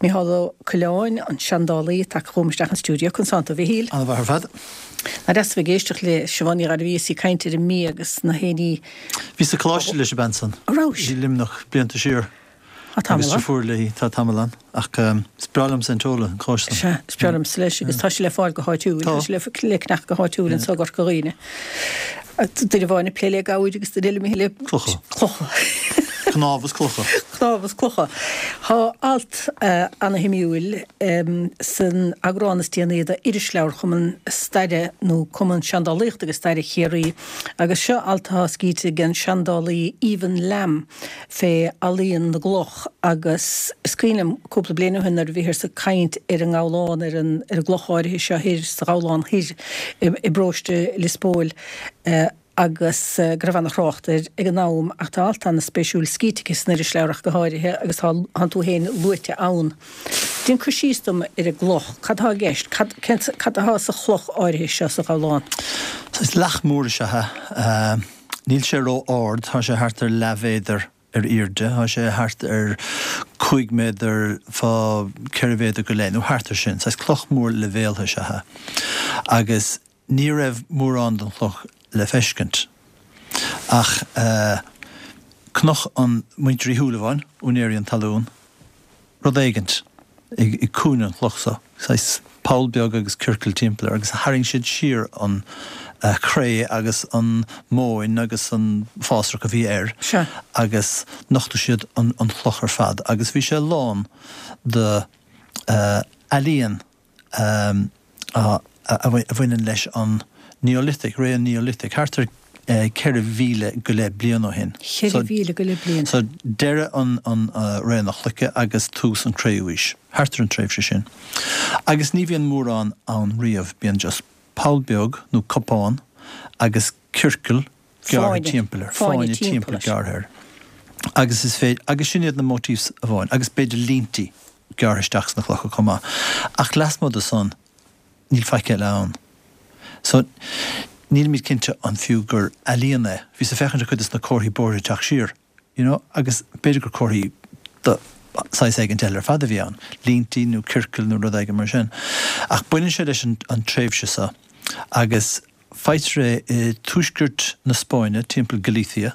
Mícheál Ó Coileáin, an seandálaí, tagtha chugam isteach an stiúideo. Conas tánn tú, a Mhichíl? Ana mhaith ar fad. Nach deas a bheith ag éisteacht le Siobhán Ní Ghairbhí is í ag caint ar an mbia agus na héinní. Bhíos sa choláiste leis an bean san. An rabhais? I Luimneach blianta siar. Tá tamall ann. Agus deirfiúr léi, tá tamall ann. Ach is breá liomsa an t-eolas, an cóiste. Sea, is breá liomsa leis agus tá sé le fáil go háitiúil. Tá. Tá sé le ceannach go háitiúil anseo i gCorca Dhuibhne. Duine amháin ag plé le gabhair agus duine eile ag plé le. Clocha. Clocha. Cnámha is clocha. Cnámha is clocha. Tá alt ana-shuimiúil san eagrán is déanaí d'Irisleabhar Chumann Staire nó Cumann Seandálaíochta agus Staire Chiarraí agus seo alt atá scríte ag an seandálaí Ivan Lamb fé ealaíon na gcloch agus is cuimhin liom cúpla bliain ó shin nuair a bhíothas ag caint ar an nGabhlán, ar an ar an gcloch áirithe seo thoir sa Ghabhlán Thoir i bparóiste Lios Póil agus go raibh ana-thrácht air ag an am ach tá alt ana-spéisiúil scríte aici san irisleabhar ach go háirithe agus tá tánn tú féin luaite ann. Déan cur síos dom ar an gcloch, cad atá i gceist, cad cén cad atá sa chloch áirithe seo sa Ghabhlán? Saghas leac mór is ea é. Níl sé ró-ard, tá sé thart ar leathmhéadar ar airde, tá sé thart ar 5 méadar fá 4 mhéadar go leith, nó thart ar sin. Saghas cloch mór leibhéaltha is ea é. Agus ní raibh mórán den chloch le feiscint. Ach chonaic an muintir Uí Shúilleabháin, úinéirí an talún, rud éigint i gcúinne an chloch so, saghas poll beag agus ciorcal timpeall air, agus tharraing siad siar an chré agus an mhóin agus an fásrach a bhí air agus nochtadh siad an chloch ar fad agus bhí sé lán de ealaíon a bhaineann leis an Neolithic, ré an Neolithic, thart ar 4,000 go leith bliain ó shin. 4,000 go leith bliain. So deireadh an ré na cloiche agus tús an cré-umhaois, thart ar an tréimhse sin. Agus ní bhíonn mórán ann riamh, bíonn just poll beag nó cupán agus ciorcal gearrtha timpeall air, fáinne timpeall gearrtha air. Agus is féidir, agus sin iad na motifs amháin, agus b'fhéidir líntí gearrtha isteach sna clocha chomh maith. Ach lasmuigh de san, níl faic eile ann. So, nílimid cinnte an fiú gur ealaíon é. Bhíos ag féachaint ar chuid des na comharthaí bóithre ag teacht siar, you know, agus b'fhéidir gur comharthaí de saghas éigint eile ar fad a bhí ann, líntí nó ciorcail nó rud éigin mar sin. Ach baineann sé leis an tréimhse seo agus faightear é i tuaisceart na Spáinne, timpeall Galicia.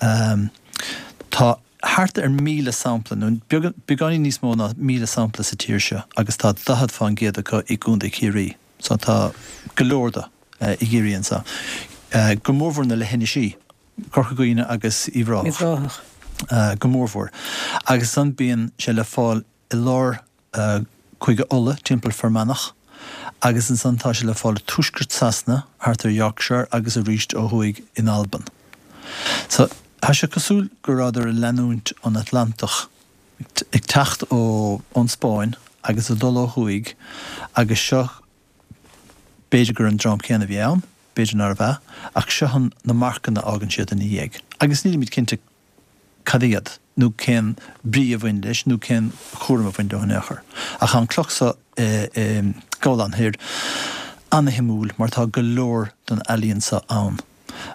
Tá thart ar 1,000 sampla, nó beagáinín níos mó ná 1,000 sampla sa tír seo agus tá 40 fán gcéad acu i gContae Chiarraí. So tá go leor de i gCiarraí anseo. Go mórmhór na leithinisí, Corca Dhuibhne agus Uíbh Ráthach. Go mórmhór. Agus ansan bíonn sé le fáil i lár Cúige Uladh, timpeall Fear Manach, agus ansan tá sé le fáil i tuaisceart Sasana, thart ar Yorkshire agus arís ó thuaidh in Albain. So, tá sé cosúil go rabhadar ag leanúint an Atlantach, ag teacht ó ón Spáinn agus ag dul ó thuaidh agus seo, b'fhéidir gur an dream céanna a bhí ann, b'fhéidir nárbh ea, ach seo an, na marcanna a fhágann siad ina dhiaidh. Agus nílimid cinnte cad iad, nó cén brí a bhain leis, nó cén chúram a bhain leo in aon chor. Ach tá an cloch so i nGabhlán Thoir ana-shuimiúil mar tá go leor den ealaíon so ann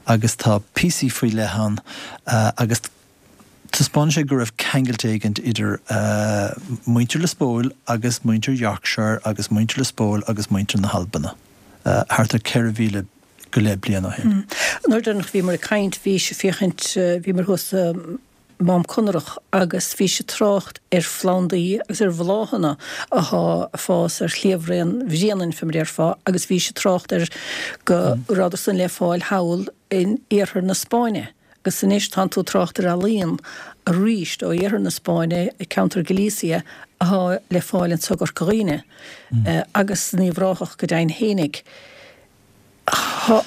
agus tá píosaí faoi leith ann agus taispeánann sé go raibh ceangailt éigint idir muintir Lios Póil agus muintir Yorkshire agus muintir Lios Póil agus muintir na hAlbana thart ar 4,000 go leith bliain ó shin. An uair deireanach a bhíomar ag caint bhís ag féachaint, bhíomar thuas i Mám Conrach agus bhís ag trácht ar phlandaí agus ar bhláthanna athá ag fás ar shliabhraon Bhréanainn fé mar a déarfá agus bhís ag trácht ar go rabhadar san le fáil thall in iarthar na Spáinne agus anois tánn tú ag trácht ar ealaíon arís ó iarthar na Spáinne, ceantar Galicia athá le fáil anso i gCorca Dhuibhne agus in Uíbh Ráthach go deimhin fhéinig. Tá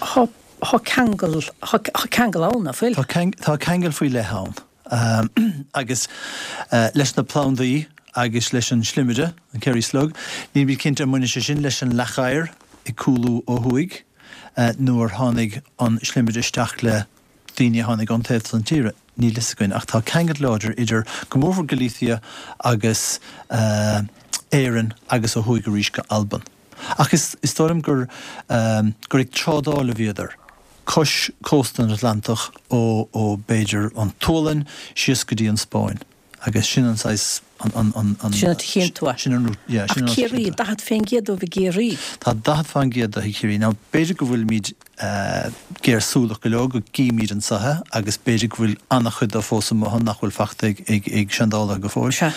ceangal, tá ceangal ann, nach bhfuil? Tá ceangal faoi leith ann. Agus leis na plandaí agus leis an slimire, an Kerry Slug, nílimid cinnte an mbaineann sé sin leis an leac oighir ag cúlú ó thuaidh nó ar tháinig an slimire isteach le daoine a tháinig ón taobh san tíre, níl fhios againn. Ach tá ceangal láidir idir, go mórmhór Galicia agus Éirinn agus ó thuaidh arís go Albain. Ach is dóigh liom gur gur ag trádáil a bhíodar, cois cósta an Atlantach ó ó b'fhéidir an tSualainn síos go dtí an Spáinn. Agus sin an saghas, an, an, an, an. Sin an áit a chíonn tú é. Sin an, yeah, sin an Ach Ciarraí, 40% dóibh i gCiarraí. Tá 40% de i gCiarraí. Now, b'fhéidir go bhfuilimid géarshúileach go leor go gcímid anso é agus b'fhéidir go bhfuil an-chuid de fós amuigh ann nach bhfuil fachta ag, ag, ag seandálaithe go fóill. Sea.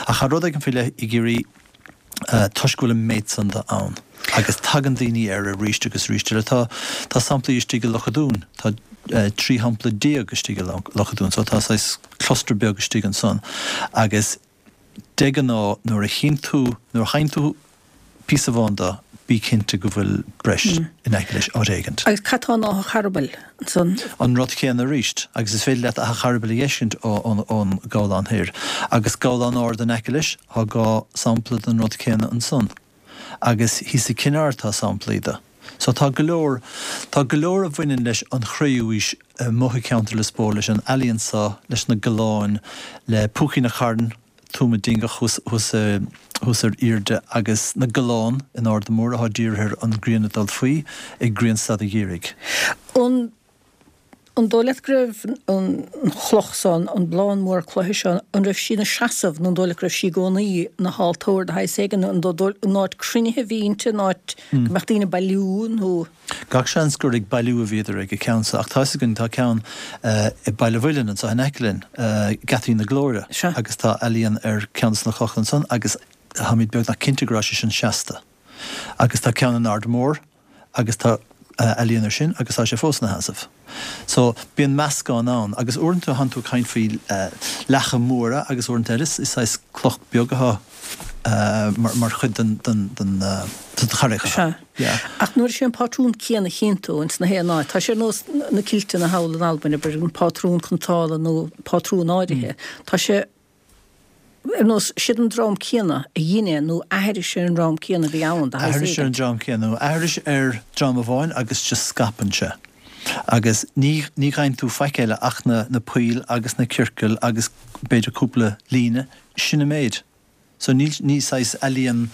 Ach tá rud éigin faoi leith i gCiarraí toisc go bhfuil an méid san de ann agus tagann daoine air arís agus arís eile. Tá, tá samplaí istigh i Loch a' Dúin, tá 13 shampla istigh i Loch a' Dúin so tá saghas cluster beag istigh ansan agus de ghnáth nuair a chíonn tú, nuair a fhaigheann tú píosa amháin de, bí cinnte go bhfuil breis in aice leis áit éigint. Agus cad tá in Áth an Charbaill ansan? An rud céanna arís, agus is féidir leat Áth an Charbaill a fheiscint ón gCabhlán Thoir. Agus Gabhlán Ard in aice leis, tá 2 sampla den rud céanna ansan. Agus thíos i Cinn Aird tá samplaí de. So tá go leor, tá go leor a bhaineann leis an Chré-Umhaois amuigh i gceantar Lios Póil, leis an ealaíon so, leis na galláin, le Púicín a' Chairn, Tuama Dingeach thuas, thuas, thuas ar aoirde agus na galláin in Arda Mór atá dírithe ar an ngrian ag dul faoi ag grianstad an gheimhridh. An. An dóigh leat go raibh an chloch so, an blán mór cloiche seo, an raibh sí ina seasamh nó an dóigh leat go raibh sí i gcónaí ina haltóir de shaghas éigin, an an áit cruinnithe a bhí inti, an áit go mbeadh daoine ag bailiú nó. Gach seans gur ag bailiú a bhíodar ag an ceann so ach tá fhios againn tá ceann i Baile Mhuilinn anso in aice linn, Geataí na Glóire, agus tá ealaíon ar ceann de na clocha ansan agus táimid beagnach cinnte go raibh sé sin seasta. Agus tá ceann in Ard Mór agus tá ealaíon ar sin agus tá sé fós ina sheasamh. So, bíonn meascán ann agus uaireanta tánn tú ag caint faoi leacha móra agus uaireanta eile is saghas cloch beag atá mar chuid den den den charraig. Sea. Yeah. Ach nuair is é an pátrún céanna a chíonn tú ins na haon áit, tá sé ar nós na kilteanna thall in Albain, abair, an pátrún cniotála nó pátrún áirithe, tá sé Ar nós, siad an dream céanna a dhein é nó aithris ar an dream céanna a bhí ann, de shaghas Aithris ar an éigin. dream céanna, nó aithris ar dream amháin agus just scaipeann sé. Agus ní, ní fhaigheann tú faic eile ach na, na poill agus na ciorcail agus b'fhéidir cúpla líne, sin an méid. So níl, ní saghas ealaíon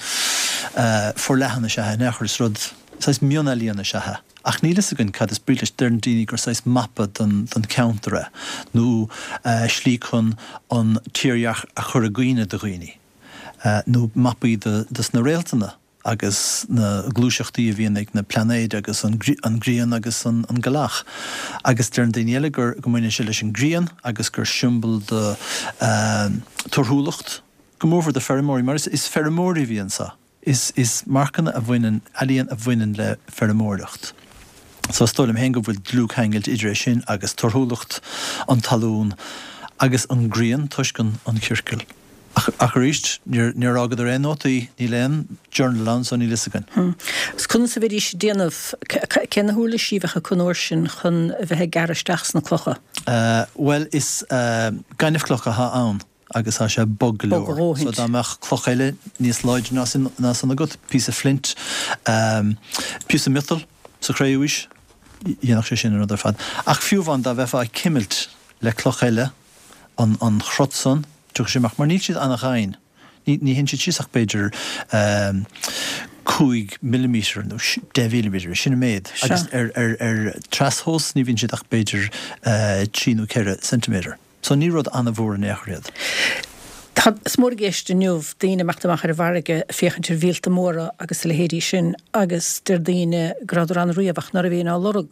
forleathan is ea é in aon chor, is rud, saghas mionealaíon is ea é. Ach níl fhios againn cad is brí leis. Deireann daoine gur saghas mapa don cheantar é, nó slí chun an tírdhreach a chur i gcuimhne do dhaoine, nó mapaí dos na réaltanna agus na gluaiseachtaí a bhíonn ag na plainéid agus an ghrian agus an ghealach. Agus deireann daoine eile gur go mbaineann sé leis an ghrian agus gur siombail do torthúlacht, go mórmhór do feirmeoirí, mar is feirmeoirí a bhí anso. Is is marcanna a bhaineann, ealaíon a bhaineann le feirmeoireacht. So is dóigh liom féin go bhfuil dlúthcheangailt idir é sin agus torthúlacht an talún agus an ghrian toisc an an chiorcail. Ach ach arís, níor níor fhágadar aon nótaí, níl aon journal ann so níl fhios againn. Agus conas a bheidís ag déanamh, cé na huirlisí a bheadh acu an uair sin chun a bheith ag gearradh isteach sna clocha? Bhuel is gaineamhchloch atá ann. agus tá sé bog go Bog a leor. dhóthaint. So dá mbeadh cloch eile níos láidre ná sin, ná san agat, píosa flint, píosa miotail sa chré-umhaois, dhéanfadh sé sin an rud ar fad. Ach fiú amháin dá mbeifeá ag cimilt le cloch eile an, an chrot san, tiocfaidh sé amach, mar níl siad ana-dhoimhin. Ní, ní théann siad síos ach b'fhéidir 5 millimetre nó 10 mhillimetre, sin an méid. Sea. Agus ar, ar, ar trastomhas ní bhíonn siad ach b'fhéidir 3 nó 4 ceintiméadar. So ní rud an-mhór in aon chor iad. Tá, is mór i gceist inniu daoine ag imeacht amach ar an bhfarraige ag féachaint ar mhíolta móra agus a leithéidí sin agus deir daoine go rabhadar ann riamh ach ná raibh éinne á lorg.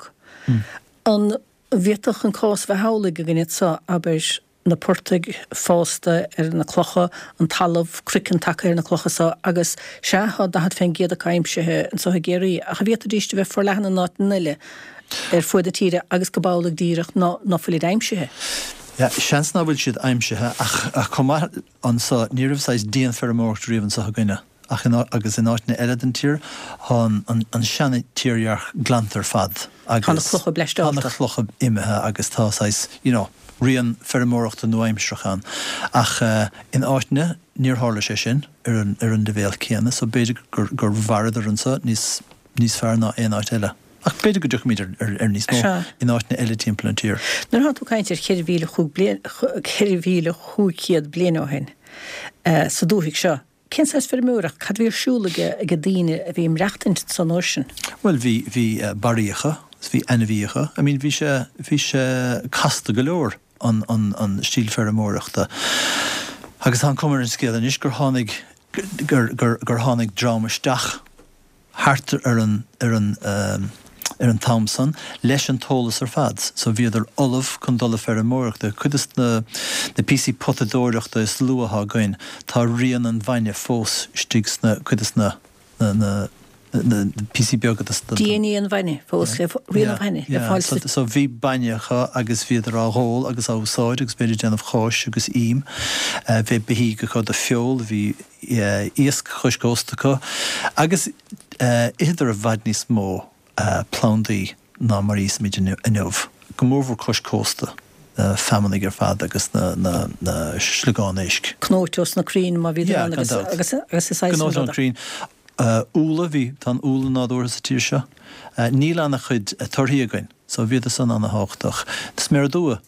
An bhféadfadh an cás a bheith amhlaidh againn anso, abair, na portaigh fásta ar na clocha, an talamh, craiceann tagtha ar na clocha so agus, sea, tá 40% acu aimsithe anso i gCiarraí ach an bhféadfaidís a bheith forleathan in áiteanna eile? ar fuaid na tíre agus go b'amhlaidh díreach ná ná fuilid aimsithe. Yeah, seans ná fuil siad aimsithe ach chomh maith anso, ní raibh saghas dianfheirmeoireacht riamh anso againne ach in agus in áiteanna eile den tír tá an an seana-tírdhreach glanta ar fad agus Tá na clocha tá na clocha imithe agus tá saghas, you know, rian feirmeoireachta nua-aimsearach ann ach in áiteanna níor tharla sé sin ar an ar an leibhéal céanna so b'fhéidir gur gur mhaireadar anso níos níos fearr ná aon áit eile. Ach b'fhéidir go dtiocfaimid ar níos mó in áiteanna eile timpeall an tír. Nuair atá tú ag caint ar 4,500 bliain ó shin sa dúthaigh seo, cén saghas feirmeoireacht, cad a bhí ar siúl ag ag daoine a bhí ag maireachtaint ansan uair sin? Bhuel, bhí, bhí barraíocha, is bhí ainmhíocha. I mean, bhí sé, bhí sé casta go leor, an, an, an stíl feirmeoireachta. Agus tá an cuma ar an scéal anois gur tháinig, gur, gur, gur tháinig dream isteach thart ar an, ar an, ar an t-am san leis an t-eolas ar fad. So bhíodar ullamh chun dul ag feirmeoireacht. Cuid de na, na píosaí potadóireachta is luaithe atá againn, tá rian an bhainne fós istigh sna, cuid de na, na, na, na píosaí beaga de na. DNA an bhainne fós le, rian an bhainne le fáil sa. So bhí bainne acu agus bhíodar á dh'ól agus á úsáid agus b'fhéidir ag déanamh cáis agus ím. Bhí beithígh acu do feoil, bhí iasc cois cósta acu agus itheadar i bhfad níos mó plandaí ná mar a íosaimid inniu, go mórmhór cois cósta, na feamanaigh ar fad agus na sliogáin éisc. Cnóite ós na crainn má bhíodar ann agus agus is saghas Cnóite ón crainn. Úlla, bhí, tá an úlla nádúrtha sa tír seo. Níl ana-chuid torthaí againn, so bhíodar san ana-thábhachtach. Sméara dubha,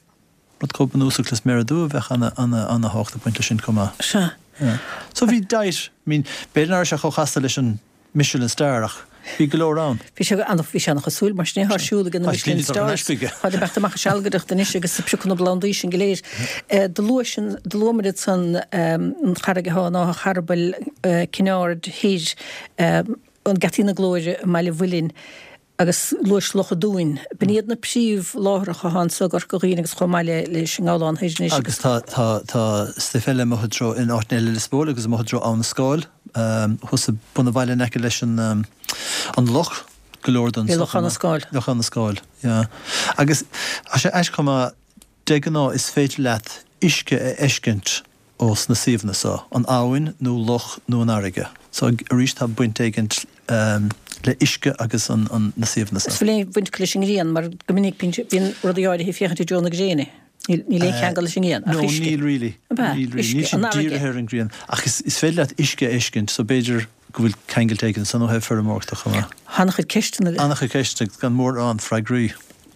rud chomh bunúsach le sméara dubha bheadh ana, ana, ana-thábhacht ag baint leis sin chomh maith. Sea. Yeah. So bhí diet, I mean, b'fhéidir nach raibh sé chomh chasta leis an Michelin Star ach bhí go leor ann. Bhí sé ana, bhí sé ana-chosúil mar sin é, tá siúl ag na Michelin Stars. Tá ag imeacht amach ag sealgaireacht anois agus ag piocadh na bplandaí sin go léir. Do luaigh sin, do luamar ansan an charraig atá in Áth an Charbaill, Cinn Aird Thoir, an Geataí na Glóire i mBaile Mhuilinn agus luais Loch an Dúin. B'in iad na príomhláithreacha atá anso i gCorca Dhuibhne agus chomh maith le leis an nGabhlán Thoir anois. Agus tá, tá, tá stuif eile amuigh i dtreo, in áiteanna eile i Lios Póil agus amuigh i dtreo Abha na Scáil, thuas ag bun an bhaile in aice leis an, an loch, go leor den stuif. Lochán na Scáil. Lochán na Scáil, yeah. Agus tá sé aisteach chomh maith, De ghnáth is féidir leat uisce a fheiscint ós na suíomhanna so, an abhainn nó loch nó an fharraige. So arís tá baint éigint le uisce agus an na suíomhanna so. Is bhfuil aon bhaint acu leis an ngrian mar go minic bíonn rudaí áirithe ag féachaint i dtreo na gréine. Níl aon cheangal leis an ngrian ach uisce. No níl really. Ab ea? Níl really. Níl siad dírithe ar an ngrian ach is féidir leat uisce a fheiscint so b'fhéidir go bhfuil ceangailt éigin ansan ó thaobh feirmeoireachta chomh maith. An-chuid ceisteanna. An-chuid ceisteanna agus gan mórán freagraí.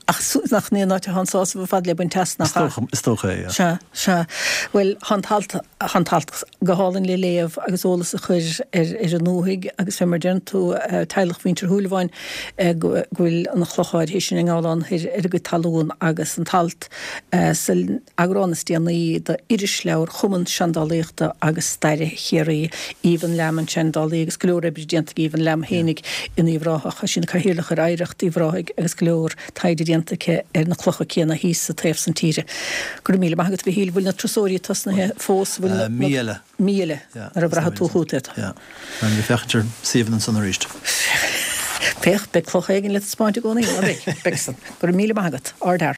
Ach nach ní an áit atá an sásamh ar fad le baint as, nach ea? Is dócha é, yeah. Sea, sea. Bhuel, tá an t-alt, tá an t-alt go hálainn le léamh agus eolas a chur ar, ar an ndúthaigh agus fé mar a deireann tú, teaghlach Mhuintir Shúilleabháin, go bhfuil an chloch áirithe sin i nGabhlán Thoir ar a gcuid talún agus an t-alt san eagrán is déanaí d'Irisleabhar Chumann Seandálaíochta agus Staire Chiarraí, Aoibheann Lamb an seandálaí agus go leor oibre déanta ag Aoibheann Lamb fhéinig in Uíbh Ráthach. Tá sí ina cathaoirleach ar Oidhreacht Uíbh Ráthaigh agus go leor taighde déanta aici ar na clocha céanna thíos sa taobh san tíre. Go raibh míle maith agat, a Mhichíl. Bhfuil na turasóirí tosnaithe fós? Bhfuil na. Mí eile. Mí eile, nuair a bhraithfidh tú chugat iad. Yeah. Beidh mé ag féachaint ar suíomhanna ansan arís. Féach, beidh cloch éigin le taispeáint i gcónaí, ná beidh? Beidh san. Go raibh míle maith agat. Ardfhear.